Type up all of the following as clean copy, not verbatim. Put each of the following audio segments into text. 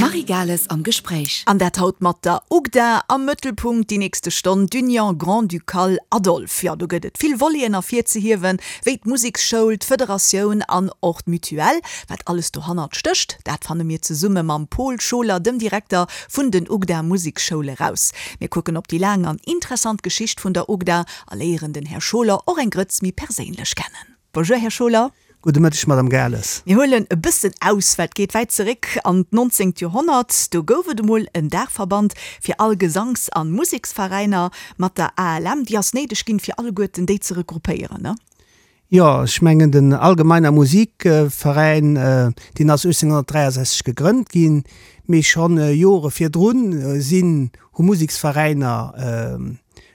D'Marie Gales am Gespréich. An dat haut mat der UGDA. Am Mëttelpunkt déi nächste Stonn d'Union Grand-Ducale Adolphe. Jo, do gëtt et vill Voleten ervirzehiewen, wéi d'Museksschoul, d'Federatioun an och d'Mutuelle. Wat alles dohannert stécht, dat fanne mir zesumme mam Paul Scholer, dem Direkter vun den UGDA Museksschoule raus. Mir kucken op déi laang an interessant Geschicht vun der UGDA a léieren den Här Scholer och eng Grëtz méi perséinlech kennen. Bonjour Här Scholer. Gudde Mëtteg Madame Gales. Mir huelen e bëssen aus, well et geet wäit zeréck an d'nonzéngt Joerhonnert. Do gouf et emol en Daachverband fir all Gesanks an Museksveräiner mat der ALM. Déi ass néideg ginn, fir alleguerten déi ze regroupéieren, ne? Jo, ech mengen den Allgemeiner Musikveräin, deen ass 1863 gegrënnt ginn, mee schonn Jore virdrun sinn, hu Museksveräiner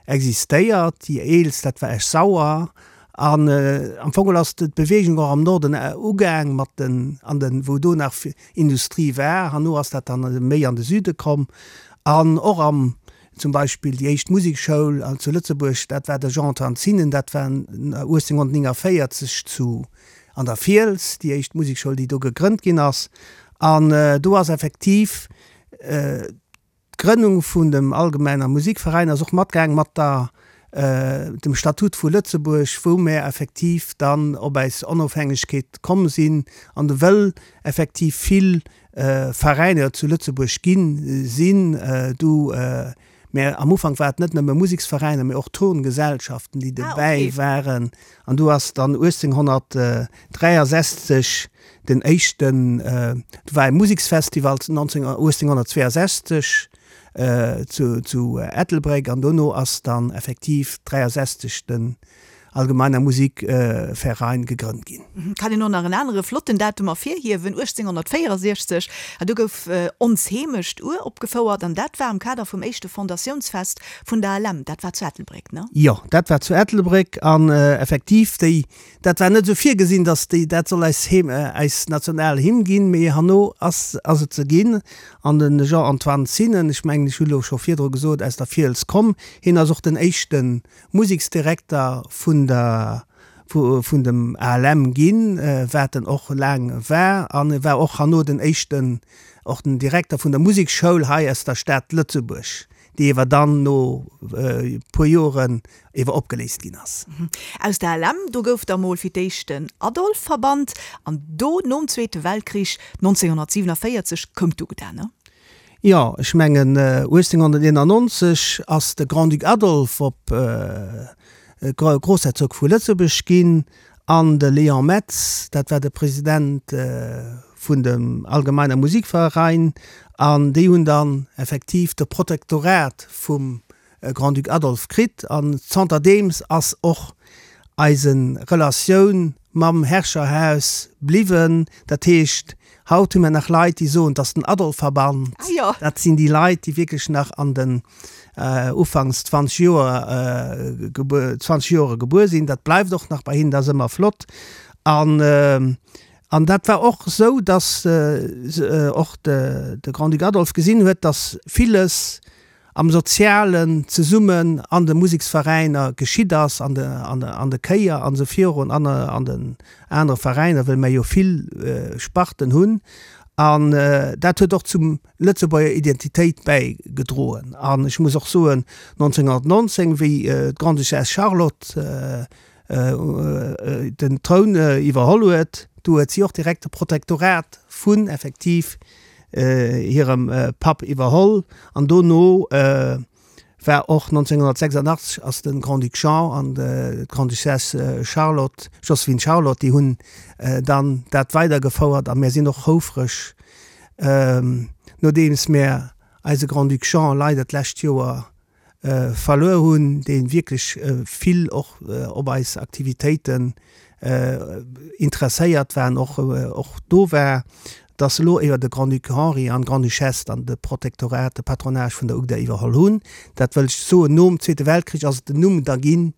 existéiert. Déi eelst, dat war Esch-Sauer. An am Fong ass d'Beweegung och am Norden ugaang mat den, an den, wou do nach Industrie war. Herno ass dat dann méi an de Süde komm. An och am, zum Beispill déi éischt Musekschoul zu Lëtzebuerg, dat war de Jean-Antoine Zinnen, dat war 1849 zu, an der Fiels, déi éischt Musekschoul, déi do gegrënnt ginn ass. An do ass effektiv, D'Grënnung vun dem Allgemeiner Musikveräin ass och matgaang mat der dem Statut vu Lëtzebuerg, wou mär effektiv dann op äis Onofhängegkeet komm sinn an wëll effektiv vill Veräiner zu Lëtzebuerg ginn sinn. Du, mä am Ufank war et net nëmme Museksveräiner, mä och Turngesellschaften, déi dobäi waren. An du ass dann 1863 Den éischten, do war e Museksfestival 1862 zu Ettelbréck an dono ass dann effektiv 63 den Allgemeiner Musikverein gegrënnt ginn. Kann een och nach en anere flotten Datum ervirhiewen, 1864, do gouf Ons Heemecht uropgefouert an dat war am Kader vum éischte Fondatiounsfest vun der ALM. Dat war zu Ettelbréck, ne? Jo, dat war zu Ettelbréck an effektiv déi Dat war net esou virgesinn, datt déi, dat soll eis Heem, eis national Hymn ginn, mee herno ass, ass et se ginn. An de Jean-Antoine Zinnen, ech mengen, ech hu lo scho virdru gesot, aus der Fiels komm, hien ass och den éischte Museksdirekter vun der, vu, vun dem ALM ginn, wat en och laang war. An e war och herno den éischten, och den Direkter vun der Musekschoul hei aus der Stad Lëtzebuerg. déi ewer dann no e puer Joren ewer opgeléist ginn ass. Aus der LM, do gouf da mol fir d'éischt den Adolphe-Verband an do nom Zweete Weltkrich 1947 koum d'UGDA, ne? Jo, ech mengen 1891 ass de Grand-Duc Adolphe op Groussherzog vu Lëtzebuerg ginn an de Léon Metz, dat war de President vun dem Allgemeiner Musikverein, an déi hunn dann effektiv de Protektorat vum Grand-Duc Adolphe kritt. An zanterdeems ass och eise Relatioun mam Herrscherhaus bliwwen. Dat heescht, haut hu mir nach Leit, déi soen, 't ass den Adolphe-Verband. Dat sinn déi Leit, déi wierklech nach an den ufanks 20 Joer 20 Joere gebuer sinn. Dat bleift och nach bei hinnen, dat ass ëmmer flott. An an dat war och esou, datt och de de Grand-Duc Adolphe gesinn huet, datt villes am Sozialen zesummen an de Museksveräiner geschitt ass, an de an de an de Chéier an esou virun an an den anere Veräiner, wëll mer jo vill Sparten hunn. An dat huet och zum Lëtzebuerger Identitéit bäigedroen. An ech muss och soen, 1919, wéi d'Grande-Duchesse Charlotte den Troun iwwerholl huet, du huet si och direkt de Protektorat vun effektiv hirem Papp iwwerholl. An dono war och 1986 ass de Grand-Duc Jean an d'Grande-Duchesse Charlotte, Joséphine Charlotte, déi hunn dann dat weidergefouert. A mir sinn och houfreg, nodeems mir eise Grand-Duc Jean leider d'lescht Joer verluer hunn, dee wierklech vill och op eis Aktivitéiten interesséiert war an och och do war, dass elo iwwer de Grand-Duc Henri an d'Grande-Duchesse dann de Protektorat, de Patronage vun der UGDA iwwerholl hunn. Dat wëll ech soen, nom Zweete Weltkrich ass et den Numm da ginn,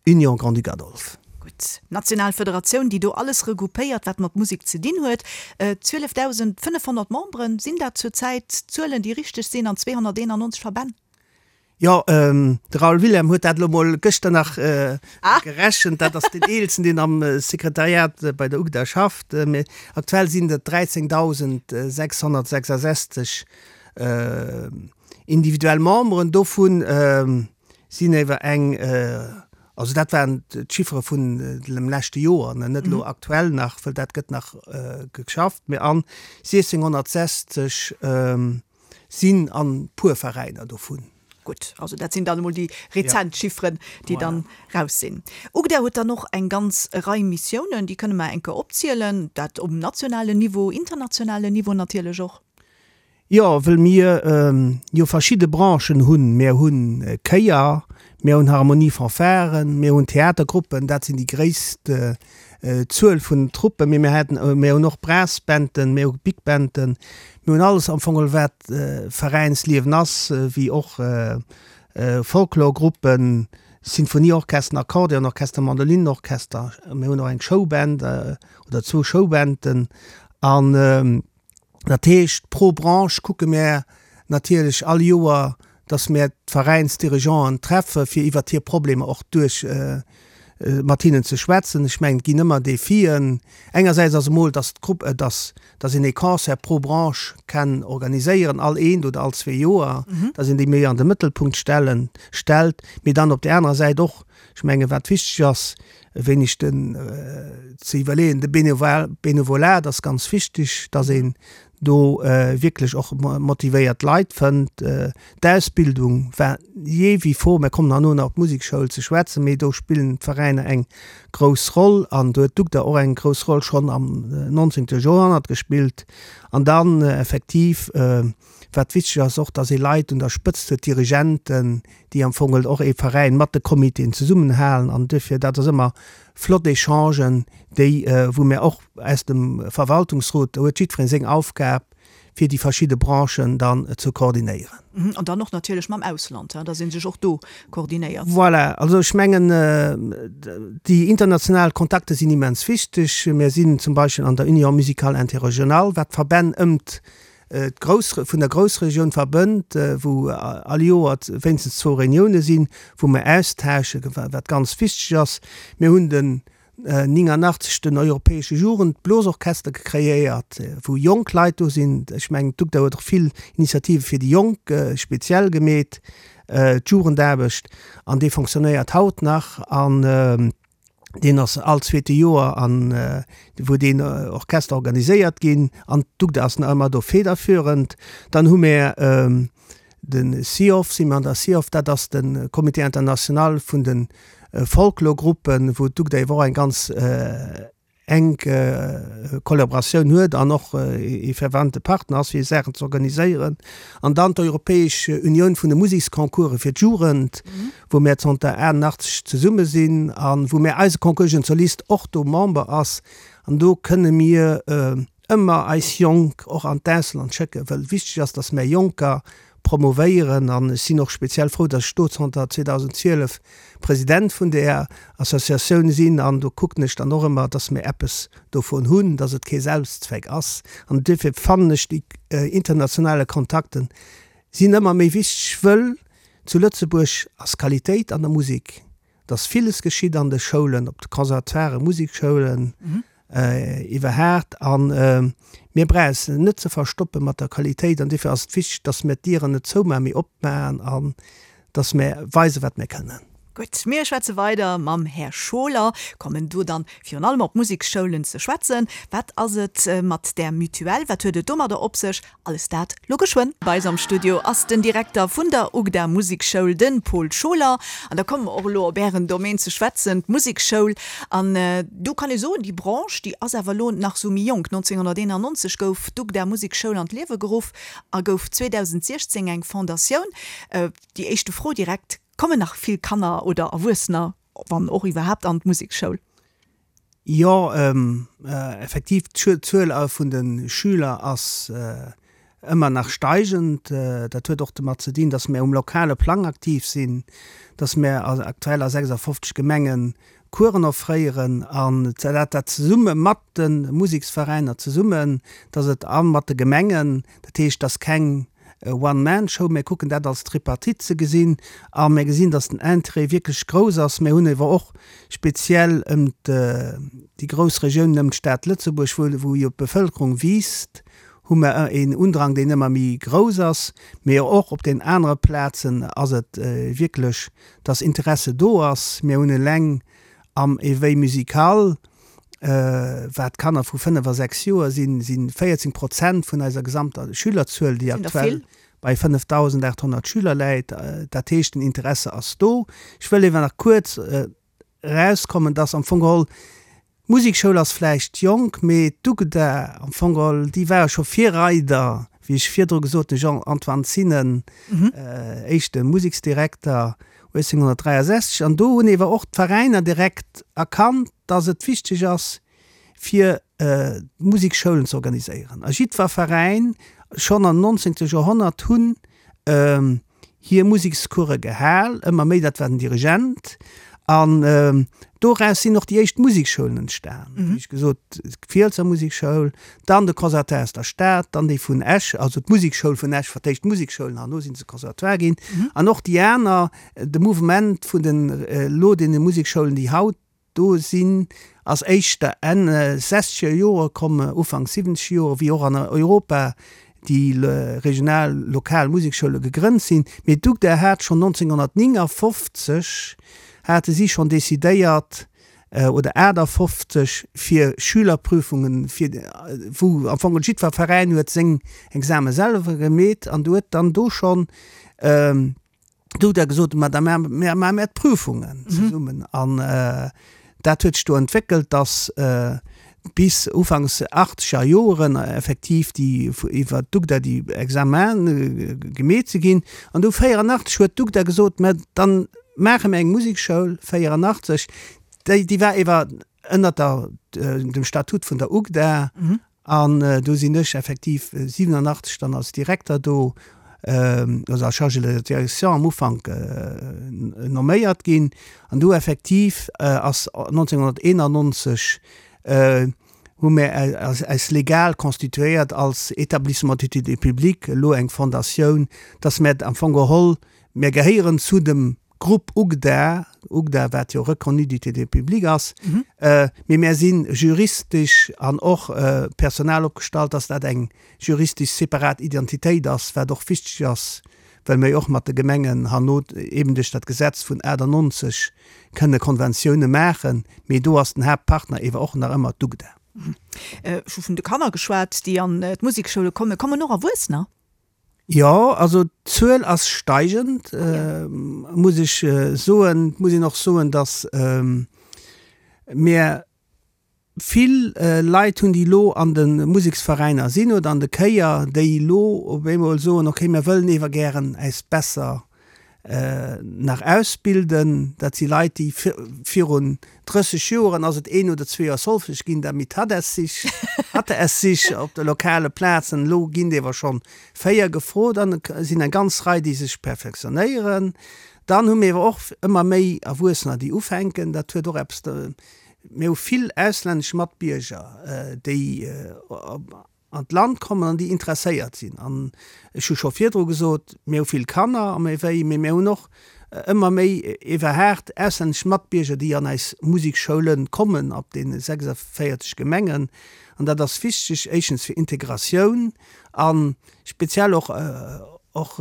Union Grand-Duc Adolphe. Gutt, national Federatioun, déi do alles regroupéiert, wat mat Musek ze dinn huet. 12.500 Memberen, sinn dat zur Zäit Zuelen, déi richteg sinn, an 291 Verbänn? Jo, de Raoul Wilhelm huet dat elo mol gëschter nach gerechent. Dat ass deen Eelsten, deen am Sekretariat bei der UGDA schafft. Mee aktuell sinn et 13.666 individuell Memberen. Dovu sinn ewer eng, also dat waren d'Chiffere vun dem leschte Joer, net elo aktuell nach, wëll dat gëtt nach geschafft, mee an 1.660 sinn an puer Veräiner dovun. Gutt, also dat sinn dann emol déi rezent Chifferen, déi dann raus sinn. UGDA huet dann och eng ganz Rei Missiounen, déi kënne mer eng Kéier opzielen, dat um nationalen Niveau, internationalen Niveau natierlech och. Jo, wëll mir jo verschidde Branchen hunn. Mir hu Chéier, mir hunn Harmonie-Fanfaren, mir hunn Theatergruppen, dat sinn déi gréisst Zuel vun Truppen, mee mir haten, mir hunn och Brassbanden, mir hu Big Banden, mir hunn alles am Fong wat Veräinsliewen ass, wéi och Folklorgruppen, Sinfonieorchester, Akkordeonorchester, Mandolinenorchester, mir hunn och eng Showband oder zwou Showbanden an Dat heescht, pro Branche kucke mär natierlech all Joer, dass mär d'Veräinsdirigeanten treffe fir iwwert hir Problemer och duerch mat hinnen ze schwätzen. Ech mengen, et ginn ëmmer Defien. Engersäits ass emol, dass d'Grupp, dass, dass een ee Concert pro Branche kann organiséieren, all eent oder all zwee Joer, dass een déi méi an de Mëttelpunkt stellen, stellt. Mee dann op där anerer Säit och, ech mengen, wat wichteg ass, e wéineg den ze iwwerleeën, de Benevolat ass ganz wichteg, dass een do wierklech och motivéiert Leit fënnt. D'Ausbildung war jee wie vor, mir kommen herno nach op d'Musekschoul ze schwätzen, mee do spillen d'Veräiner eng grouss Roll an do huet d'UGDA och eng grouss Roll schonn am 19. Joerhonnert gespillt. An dann effektiv, Wat wichteg ass och, dass ee Leit un der Spëtzt huet, Dirigenten, déi am Fong och ee Veräin mat de Comitéen zesummenhalen. An duerfir, dat ass ëmmer flott Echangen, déi, wou mir och aus dem Verwaltungsrot, do huet jiddweree seng Aufgab, fir déi verschidde Branchen dann ze koordinéieren. An dann och natierlech mam Ausland, dass ee sech och do koordinéiert. Voilà, also ech mengen, déi international Kontakte sinn immens wichteg. Mir sinn zum Beispill an der Union musicale interrégionale, wat d'Verbänn ëmt d'Grouss, vun der Groussregioun verbënnt, wou all Joer wéinstens zwou Reunioune sinn, wou mer austauschen, wat ganz wichteg ass. Mir hunn den 89 den Europäesche Jugendblosorchester kreéiert, wou jonk Leit do sinn. Ech mengen, d'UGDA huet och vill Initiative fir déi Jonk speziell gemeet, d'Jugendaarbecht, an dee fonctionnéiert haut nach. An Deen ass all zweete Joer an wou deen Orchester organiséiert ginn an d'UGDA ass nach ëmmer do federführend. Dann hu mär de CIOF, si mir an der CIOF, dat ass de Comité international vun de Folklorgruppen, wou d'UGDA ewer och eng ganz enk Kollaboratioun huet an och ee fervente Partner ass fir Saachen ze organiséieren. An dann d'Europäesch Unioun vun de Museksconcourse fir d'Jugend, wou mär zanter 88 zesumme sinn a wou mär eise Concours Jeunes Solistes och do Member ass. An do kënne mir ëmmer eis Jonk och an d'Ausland schécken, wëll wichteg ass, datt mär Jonker promovéieren an ech sinn och speziell frou, datt ech do zanter 2012 President vun där Associatioun sinn an do kucken ech dann och ëmmer, datt mir eppes dovun hunn, datt et kee Selbstzweck ass. An duerfir fannen ech déi internationale Kontakten sinn ëmmer méi wichteg, wëll zu Lëtzebuerg ass Qualitéit an der Musek dass villes geschitt an de Schoulen, op de Conservatoiren, Musikschoulen iwwerhaat an mir brauche eis net ze verstoppe mat der Qualitéit an duerfir ass et wichteg, dass mir d'Dieren net zoumaachen, mee opmaachen an dass mir weisen, wat mir kënnen. Gutt, mir schwätze weider mam Här Scholer, kommen do dann virun allem op d'Musikschoulen ze schwätzen. Wat ass et mat där Mutuelle, wat huet et domadder op sech? Alles dat lo geschwënn. Bei eis am Studio ass den Direkter vun der UGDA Musekschoul, de Paul Scholer. An da komme mer och elo op Ären Domaine ze schwätzen, d'Musekschoul. An do kann ee soen, déi Branche, déi ass awer elo nach sou méi jonk. 1991 gouf d'UGDA Musekschoul an d'Liewe geruff a gouf 2016 eng Fondatioun. Déi éischte Fro direkt, Kommen nach vill Kanner oder Erwuessener, wann och iwwerhaapt, an d'Musekschoul? Jo, effektiv, d'Zuel vun de Schüler ass ëmmer nach steigend. Dat huet och domat ze dinn, datt mir um lokale Plang aktiv sinn, datt mir aktuell a 56 Gemenge Coursen offréieren an dat dat zesumme mat de Museksveräiner zesummen, datt et a mat de Gemengen, dat heescht, datt keng. One-Man-Show. Mir kucken dat als Tripartite ze gesinn a mir gesinn, dass den Interêt wierklech grouss ass. Mir hunn ewer och speziell ëm déi grouss Regiounen ëm d'Stad Lëtzebuerg, wou jo d'Bevëlkerung wiisst, hu mer een Undrang, deen ëmmer méi grouss ass. Mee och op den anere Plazen ass et wierklech, dass Interesse do ass. Mir hunn eleng am Éveil musical, wat Kanner vu 5 a 6 Joer sinn, si 14 Prozent vun eiser gesamter Schülerzuel, déi aktuell bei 5.800 Schüler läit. Dat heescht, den Interesse ass do. Ech wëll ewer nach kuerz erauskommen, dass am Fong geholl, d'Musekschoul ass vläicht jonk, mee d'UGDA am Fong geholl, déi ware scho Virreider, wéi ech virdru gesot hunn, Jean-Antoine Zinnen, éischte Museksdirekter 1863. An do hunn ewer och d'Veräiner direkt erkannt, dass et wichteg ass, fir Musekschoulen ze organiséieren. A jiddwer Veräin, schonn am 19. Joerhonnert, hunn hir Musekscourse gehal, ëmmer méi, dat war den Dirigent. An doraus sinn och déi éischt Musekschoulen entstan, wéi ech gesot, d'Fielsser Musekschoul, dann de Conservatoire aus der Stad, dann déi vun Esch, also d'Musekschoul vun Esch, fir d'éischt d'Museksschoulen, herno si se Conservatoire ginn. An och déi aner, de Mouvement vun den elo deene Musekschoulen, déi haut do sinn, ass éischter Enn sechzeger Jore komm, Ufank siwwenzeger Jore, wéi och an Europa déi regional, lokal Musekschoule gegrënnt sinn. Mee d'UGDA hat schonn 1959 hate si schonn decidéiert, oder 58, fir Schülerprüfungen, fir wou am Fong jiddwer Veräin huet seng Exame selwer gemeet an do huet dann do schonn, Do huet er gesot, ma da maache mer d'Prüfungen zesummen. An dat huet sech do entwéckelt, datt bis ufanks achtzeger Joren effektiv déi iwwer d'UGDA déi Examene gemeet si ginn. An du 84 huet d'UGDA gesot, mä dann maache mer eng Musekschoul, 84, déi déi war ewer ënnert der dem Statut vun der UGDA. An do sinn ech effektiv 87 dann als Direkter do, also als Chargé de direction am Ufank nomméiert ginn. An do effektiv ass 1991 hu mir eis legal constituéiert als Établissement d'utilité publique, elo eng Fondatioun, dass mir am Fong geholl, mir gehéieren zu dem Grupp UGDA, UGDA wat jo reconnu d'utilité publique ass, mee mär si juristesch an och personal opgestallt, dass dat eng juristesch separat Identitéit ass, wat och wichteg ass, well mir jo och mat de Gemengen herno eben duerch dat Gesetz vun 98 kënne Konventioune maachen, mee do ass den Haaptpartner ewer och nach ëmmer d'UGDA. Ech hu vun de Kanner geschwat, déi an d'Musekschoule kommen. Kommen och Erwuessener? Jo, also d'Zuel ass steigend, muss ech soen. Et muss een och soen, datt mir vill Leit hunn, déi elo an de Museksveräiner sinn oder an de Chéier, déi elo op eemol soen, okay, mir wëllen ewer gären äis besser nach ausbilden. Dat si Leit, déi virun 30 Joren ass et een oder zwee Joer Solfège ginn, damit hat es sich, hatte es sich op de lokale Plazen. Elo ginn dewer schonn 4 gefrot an et sinn eng ganz Rei, déi sech perfektionéieren. Dann hu mir ewer och ëmmer méi Erwuessener, déi ufänken. Dat huet och eppes, mir hu vill auslännesch Matbierger, déi an d'Land kommen an déi interesséiert sinn. An ech hu scho virdru gesot, mir hu vill Kanner am Éveil, mee mir hunn och ëmmer méi iwwerhaart auslännesch Matbierger, déi an eis Musekschoule kommen op deene 46 Gemengen. An dat ass wichteg, éischtens fir Integratioun a speziell och och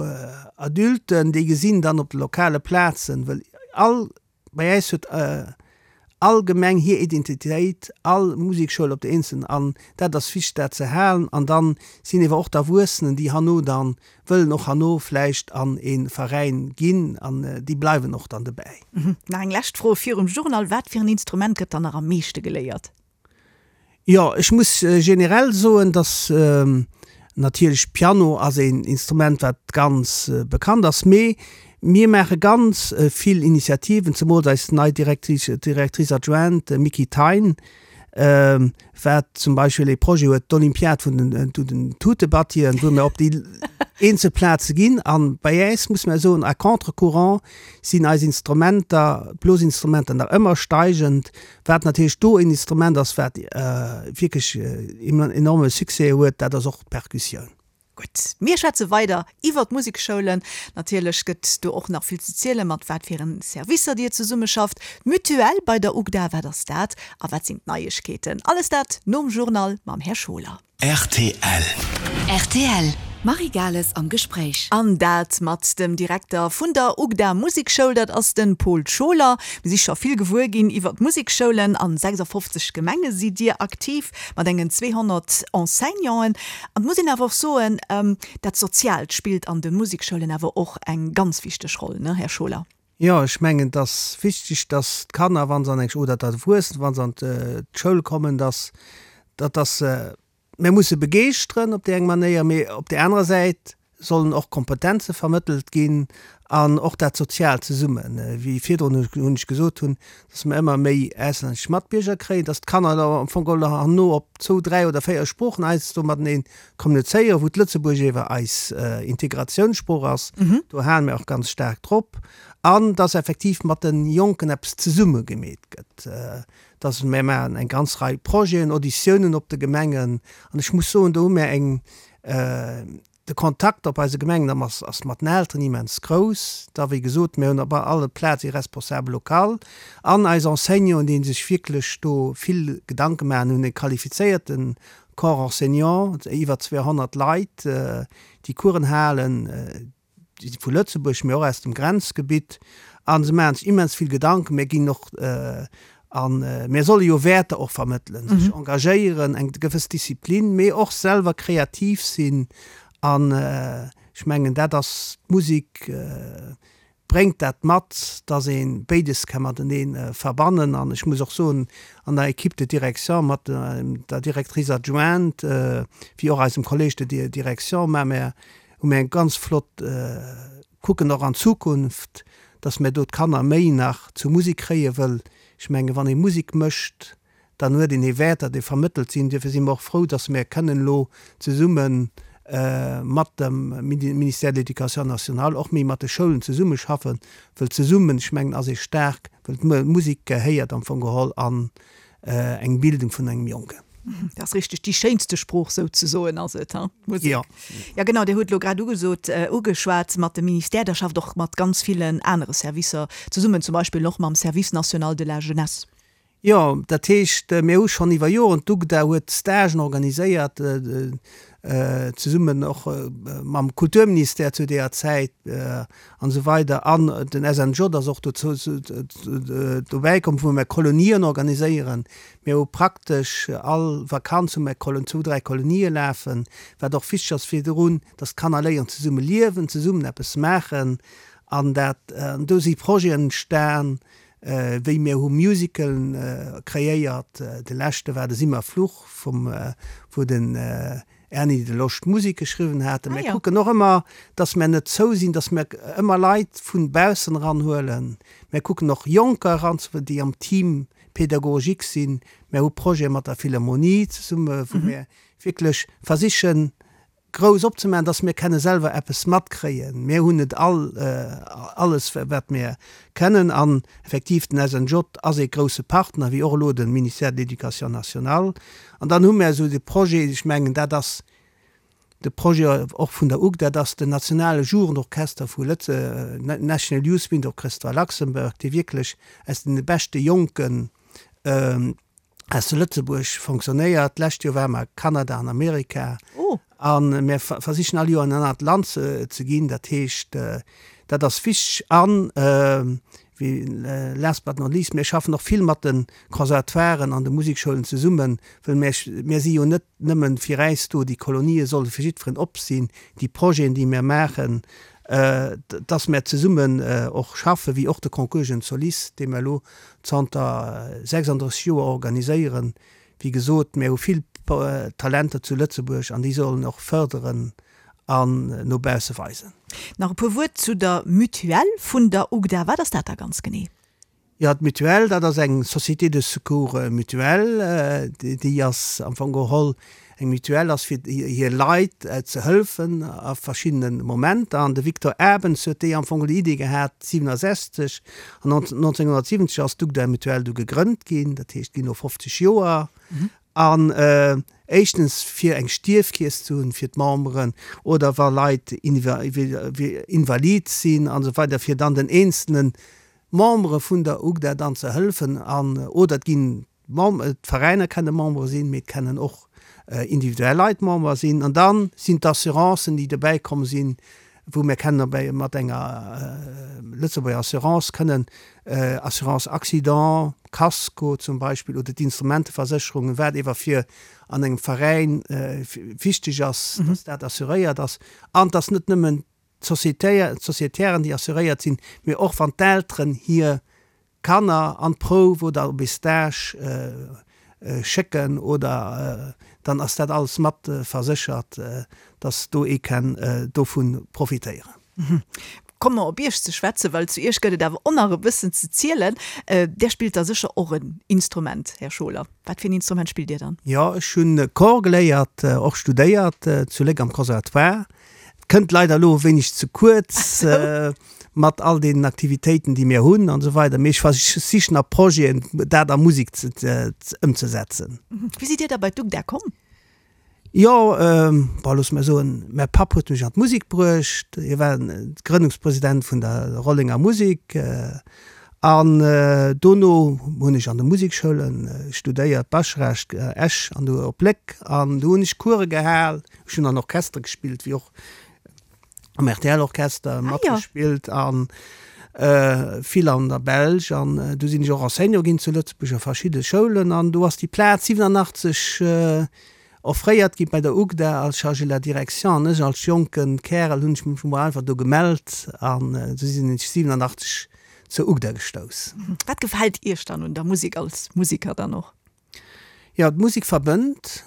Adulten, déi gesinn dann op de lokale Plazen, well all Bei äis huet all Gemeng hir Identitéit, all Musekschoul op der eenzelen an dat ass wichteg dat ze halen. An dann sinn ewer och d'Erwuessenen déi herno dann wëllen och herno vläicht an ee Veräin ginn an déi bleiwen och dann dobäi. Nach eng lescht Fro virum Journal, Wat fir en Instrument gëtt dann nach am meeschte geléiert? Jo, ech muss generell soen, dass natierlech Piano ass een Instrument, wat ganz bekannt ass, mee mir maache ganz vill Initiativen, zemools eis nei Directrice, Directrice adjointe Micky Thein, wat zum Beispill ee Projet huet, d'Olympiad vun den den Tutebattien, wou mir op déi eenzel Plaze ginn. A bei äis, muss mer soen, à contre-courant sinn eis Instrumenter, d'Blosinstrumenter nach ëmmer steigend. Wat natierlech do een Instrument ass, wat wierklech enorme Succès huet, dat ass och d'Perkussioun. Gutt, mir schwätze weider iwwer d'Musekschoulen. Natierlech gëtt do och nach vill ze zielen, mat wat fir en Servicer Dir zesummeschafft. D'Mutuelle bei der UGDA, wat ass dat a wat sinn d'Neiegkeeten? Alles dat nom Journal mam Här Scholer. Rtl. Rtl, Marie Gales am Gespréich. An dat mat dem Direkter vun der UGDA Musekschoul, dat ass de Paul Scholer. Mir si scho vill gewuer ginn iwwer d'Musekschoulen. An 56 Gemenge sidd Dir aktiv, mat engen 200 Enseignanten. An et muss een awer och soen, dat Soziaalt spillt an de Musekschoulen awer och eng ganz wichteg Roll, ne, Här Scholer? Jo, ech mengen, et ass wichteg, dass d'Kanner, wa se an eng, oder d'Erwuessen, wa se an d'Schoul kommen, dass, dass, dass se, mir musse begeeschteren op déi eng Manéier, mee op där anerer Säit sollen och Kompetenze vermëttelt ginn an och dat Soziaalt zesummen, wéi virdrun hunn ech gesot hunn, dass mer ëmmer méi auslännesch Matbierger kréien, dass d'Kanner da am Fong geholl herno op zwou, dräi oder véier Sproochen heiansdo matenee kommunizéieren, wou d'Lëtzebuergesch ewer eis Integratiounssprooch ass, do hale mir och ganz staark drop, an dass effektiv mat de Jonken eppes zesumme gemeet gëtt, dass mir maachen eng ganz Rei Projeten, Auditiounen op de Gemengen an ech muss soen, do hu mir eng De Kontakt op eise Gemengen ass ass mat den Elteren immens grouss. Da wéi gesot, mir hunn op alle Plaz ee Responsable local an eis Enseignanten, déi sech wierklech do vill Gedanke maachen, hunn e qualifizéierte Corps enseignant, iwwer 200 Leit, déi Coursen halen, vu Lëtzebuerg, mee och aus dem Grenzgebitt a se maachen sech immens vill Gedanken. Mir ginn och a mir solle jo Wäerter och vermëttelen, sech engagéieren, eng gewëss Disziplin, mee och selwer kreativ sinn an ech mengen dat ass d'Musek bréngt dat mat, dass ee béides ka matenee verbannen. An ech muss och soen, an der Équipe de direction mat der Directrice adjointe wéi och eisem Collège de direction maache mir hu mir eng ganz flott, kucken och an d'Zukunft, dass mir do d'Kanner méi nach zur Musek kréie wëll ech menge wann ee Musek mécht, dann huet een ee Wäerter, déi vermëttelt sinn. Duerfir si mer och frou, dass mir kënnen elo zesumme mat dem Ministère de l'Éducation nationale och méi mat de Schoulen zesummeschaffen, wëll zesummen, ech mengen, ass ee staark, wëll d'Musek gehéiert am Fong geholl an eng Bildung vun engem Jonken. Dat ass richteg, déi schéinste Sprooch souzesoen ass et, hein, d'Musek. Jo. Ja genau, Dir hutt elo grad ugesot, ugeschwat mat dem Ministère, Der schafft och mat ganz villen anere Servicer zesummen, zum Beispill och mam Service national de la jeunesse. Jo, dat heescht, mir hu schonn iwwer Joren, d'UGDA huet Stagen organiséiert, zesummen och mam Kulturministère zu deeër Zäit an esou weider an den SNJ ass och dozou dobäi komm, wou mir Kolonien organiséieren. Mir hu praktesch all Vakanz hu mir zwou, dräi Kolonië lafen, wat och wichteg ass virdrun, dass d'Kanner léieren zesumme liewen, zesummen eppes maachen an dat, an do si Projeten entstan, wéi mir hu Musicalen kreéiert, de leschte war de Simmer Fluch vum, wou den Erny de Losch d'Musek geschriwwen hat. Mir kucken och ëmmer, dass mir net zou sinn, dass mir ëmmer Leit vun baussen eranhuelen. Mir kucken och Jonker eranzehuelen, déi am Team pédagogique sinn. Mir hu Projete mat der Philharmonie zesumme, wou mir wierklech versichen, grouss opzemaachen, dass mir kenne selwer eppes matkréien. Mir hunn net all alles, wat mir kennen. An effektiv, den SNJ ass ee grouse Partner, wéi och elo de Ministère de l'Éducation nationale. An dann hu mir esou de Projet, ech mengen, dat ass de Projet och vun der UGDA, dat ass den nationale Jugendorchester vu Lëtze, National Youth Wind Orchestra Luxembourg, dee wierklech aus deene beschte Jonken aus zu Lëtzebuerg fonctionnéiert. D'lescht Joer ware mer a Kanada an Amerika. A mir versichen all Joer an en anert Land ze ginn. Dat heescht, dat ass wichteg. An, wéi last but not least, mir schaffen och vill mat de Conservatoiren an de Musekschoulen zesummen, wëll mir, mir si jo net nëmmen fir äis do, déi Kolonië solle fir jiddferen op sinn, déi Projeten, déi mir maachen, dass mir zesummen och schaffen, wéi och de Concours Jeunes Solistes, dee mir elo zanter 36 Joer organiséieren. Wéi gesot, mir hu vill Talenter zu Lëtzebuerg an déi sollen och fërderen an no bausse weisen. Nach e puer Wuert zu der Mutuelle vun der UGDA. Wat ass dat da ganz genee? Jo, d'Mutuelle, dat ass eng Société de secours mutuel. Déi ass am Fong geholl, eng Mutuelle ass fir hir Leit ze hëlfen a verschiddene Momenter. An de Victor Abens huet déi am Fong geholl déi Idee gehat 67 an 1970 ass d'UGDA Mutuelle du gegrënnt ginn, dat heescht ginn elo 50 Joer. An éischtens fir eng Stierfkeess ze hunn fir d'Memberen oder wa Leit invalid sinn an esou weider, fir dann den eenzelne Membere vun der UGDA dann ze hëllefen. An oder et ginn d'Veräiner kenne Membere sinn, mee et kennen och individuell Leit Member sinn. An da sinn d'Assurancen, déi dobäi komm sinn, wou mir kennen dobäi mat enger Lëtzebuerger Assurance kënnen Assurance accident, Casco zum Beispill oder d'Instrumenteversécherungen, wat ewer fir an engem Veräin wichteg ass, dass dat assuréiert ass an dass net nëmmen d'Sociétairen, déi assuréiert sinn, mee och wann d'Elteren hir Kanner an d'Prouf oder op ee Stage schécken oder dann ass dat alles mat verséchert, dass do ee kenn dovun profitéieren. Komme mer op Iech ze schwätzen, well zu Iech gëtt et awer och nach e bëssen ze zielen. Där spillt da sécher och en Instrument, Här Scholer. Wat fir en Instrument spillt Dir dann? Jo, ech hunn Cor geléiert, och studéiert zu Léck am Conservatoire. Kënnt leider elo e wéineg ze kuerz mat all deenen Aktivitéiten, déi mir hunn an esou weider, mee ech versichen a Projeten dat a Musek ëmzesetzen. Wéi sidd Dir da bei d'UGDA komm? Jo, bon, loosse mer soen, mäi Papp huet mech an d'Musek bruecht. Hie war Grënnungspresident vun der Rollenger Musek an dono hunn ech an de Musekschoule studéiert, Baschrecht, Esch an du op Léck an do hunn ech Course gehal. Ech hunn an Orchester gespillt, wéi och am RTL-Orchester matgespillt an vill an der Belsch. An du sinn ech och Enseignant ginn zu Lëtzebuerg a verschidde Schoulen. An do ass déi Plaz 87 offréiert gi bei der UGDA als Chargé de la direction. An ech als jonke Kärel hunn ech mech mol einfach do gemellt an esou sinn ech 87 zur UGDA gestouss. Wat gefält Iech dann un der Musek als Musiker dann och? Jo, d'Musek verbënnt.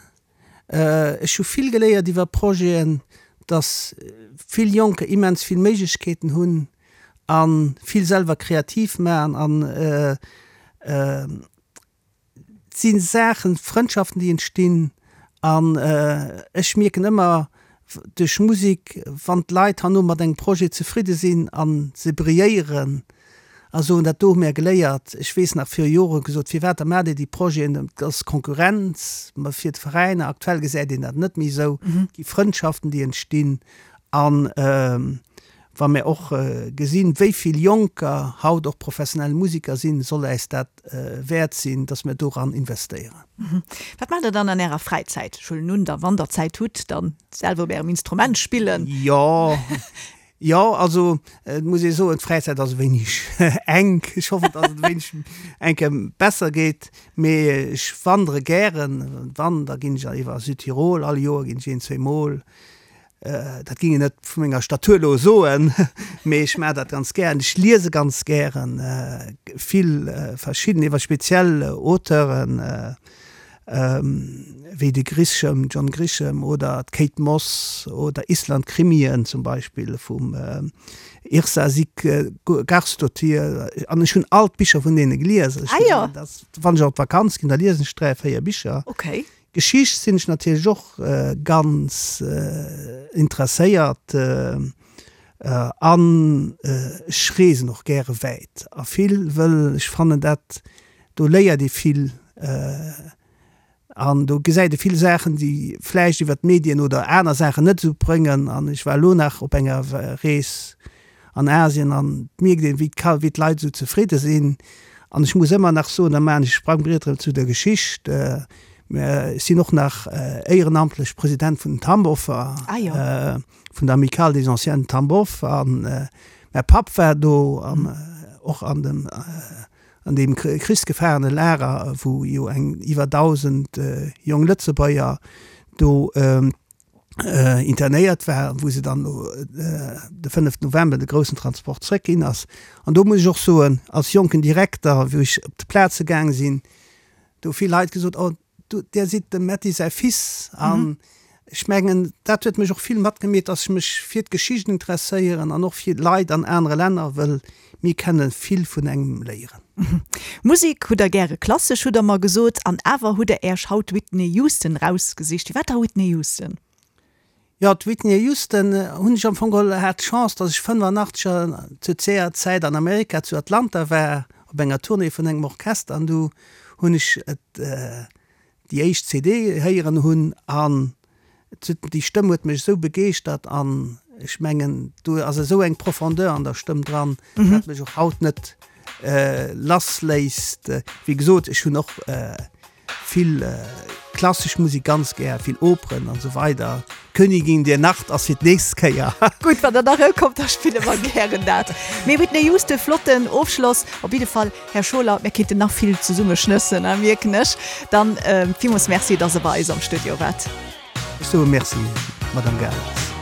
Ech hu vill geléiert iwwer Projeten, dass vill Jonker immens vill Méiglechkeeten hunn a vill selwer kreativ maachen an et si Saachen, Frëndschaften, déi entstinn an ech mierken ëmmer duerch Musek, wann d'Leit herno mat engem Projet zefridde sinn a se brilléieren, a soen, dat do hu mär geléiert. Ech weess nach, viru Jore gesot, firwat da maacht Dir déi Projeten, et ass Konkurrenz fir d'Veräiner. Aktuell gesäit een dat net méi esou. Et gi Frëndschaften, déi entstinn. A wa mär och gesinn, wéi vill Jonker haut och professionell Musiker sinn, soll äis dat wäert sinn, datt mär doran investéieren. Wat maacht Der dann an Ärer Fräizäit? Ech huelen un, da wann Der Zäit hutt, dann selwer op Ärem Instrument spillen. Jo, Jo, also et muss ee soen, d'Fräizäit ass e wéineg enk. Ech hoffen, datt et e wéineg eng Kéier besser geet. Mee ech wandere gären. Wann, da ginn ech iwwer Südtirol. All Joer ginn ech een, zweemol. Dat géing een net vu menger Statur elo soen, mee ech maachen dat ganz gären. Ech liese ganz gären vill verschidden, iwwer speziell Auteuren. Wéi de Grisham, John Grisham oder d'Kate Moss oder Island-Krimien zum Beispill vum Yrsa Sigurðardóttir. An ech hunn all d'Bicher vun deene gelies. Ech ah, ja. das, wann ech op d'Vakanz ginn, da liesen ech 3, 4 Bicher. Okay. Geschicht sinn ech natierlech och ganz interesséiert an ech reesen och gäre wäit a vill, wëll ech fannen dat Do léiert ee vill an do gesäit ee vill Saachen, déi vläicht iwwer d'Medien oder aner Saachen net esou bréngen. An ech war elo nach op enger Rees an Asien an et mierkt een, wéi wéi d'Leit esou zefridde sinn. An ech muss ëmmer nach soen, da maachen ech e Sprangbriet erëm zu der Geschicht, ech sinn och nach éierenamtlech President vun den Tamboffer, vun der Amicale des Anciens de Tambov. An mäi Papp war do an och an dem An deem krichsgefaarene Lager, wou jo eng iwwer 1.000 jong Lëtzebuerger do internéiert waren, wou se dann de 5 November de groussen Transport zréck ginn ass. An do muss ech och soen, als jonken Direkter, wou ech op d'Plaze gaang sinn, do hu vill Leit gesot, oh, Du, Dir sidd dem Metty säi Fils an ech mengen, dat huet mech och vill matgemeet, dass ech mech fir d'Geschicht interesséieren an och fir d'Leit an anere Länner, wëll mir kenne vill vun engem léieren. Musek hutt Der gäre, klassesch hutt Der mer gesot, an awer hutt Der Äerch haut Whitney Houston rausgesicht. Firwat da Whitney Houston? Jo, d'Whitney Houston hunn ech am Fong geholl, hat d'Chance, dass ech 85 zu zeer Zäit an Amerika zu Atlanta war op enger Tournée vun engem Orchester an du hunn ech et. déi éischt CD héieren hunn an déi Stëmm huet mech esou begeeschtert an ech mengen do ass esou eng Profondeur an der Stëmm dran, dat mech och haut net lass léisst. Wéi gesot, ech hunn och vill klassesch Musek ganz gär, vill Operen an esou weider. Königin der Nacht ass fir d'nächst Kéier. Gutt, wann der nach erëmkommt, da spille mer gären dat. Mee Whitney Houston, flotten Ofschloss op jidde Fall. Här Scholer, mir kéinten nach vill zesumme schnëssen, mierken ech. Dann villmools Merci, dass Der bei eis am Studio waart. Ech soe Merci, Madame Gales.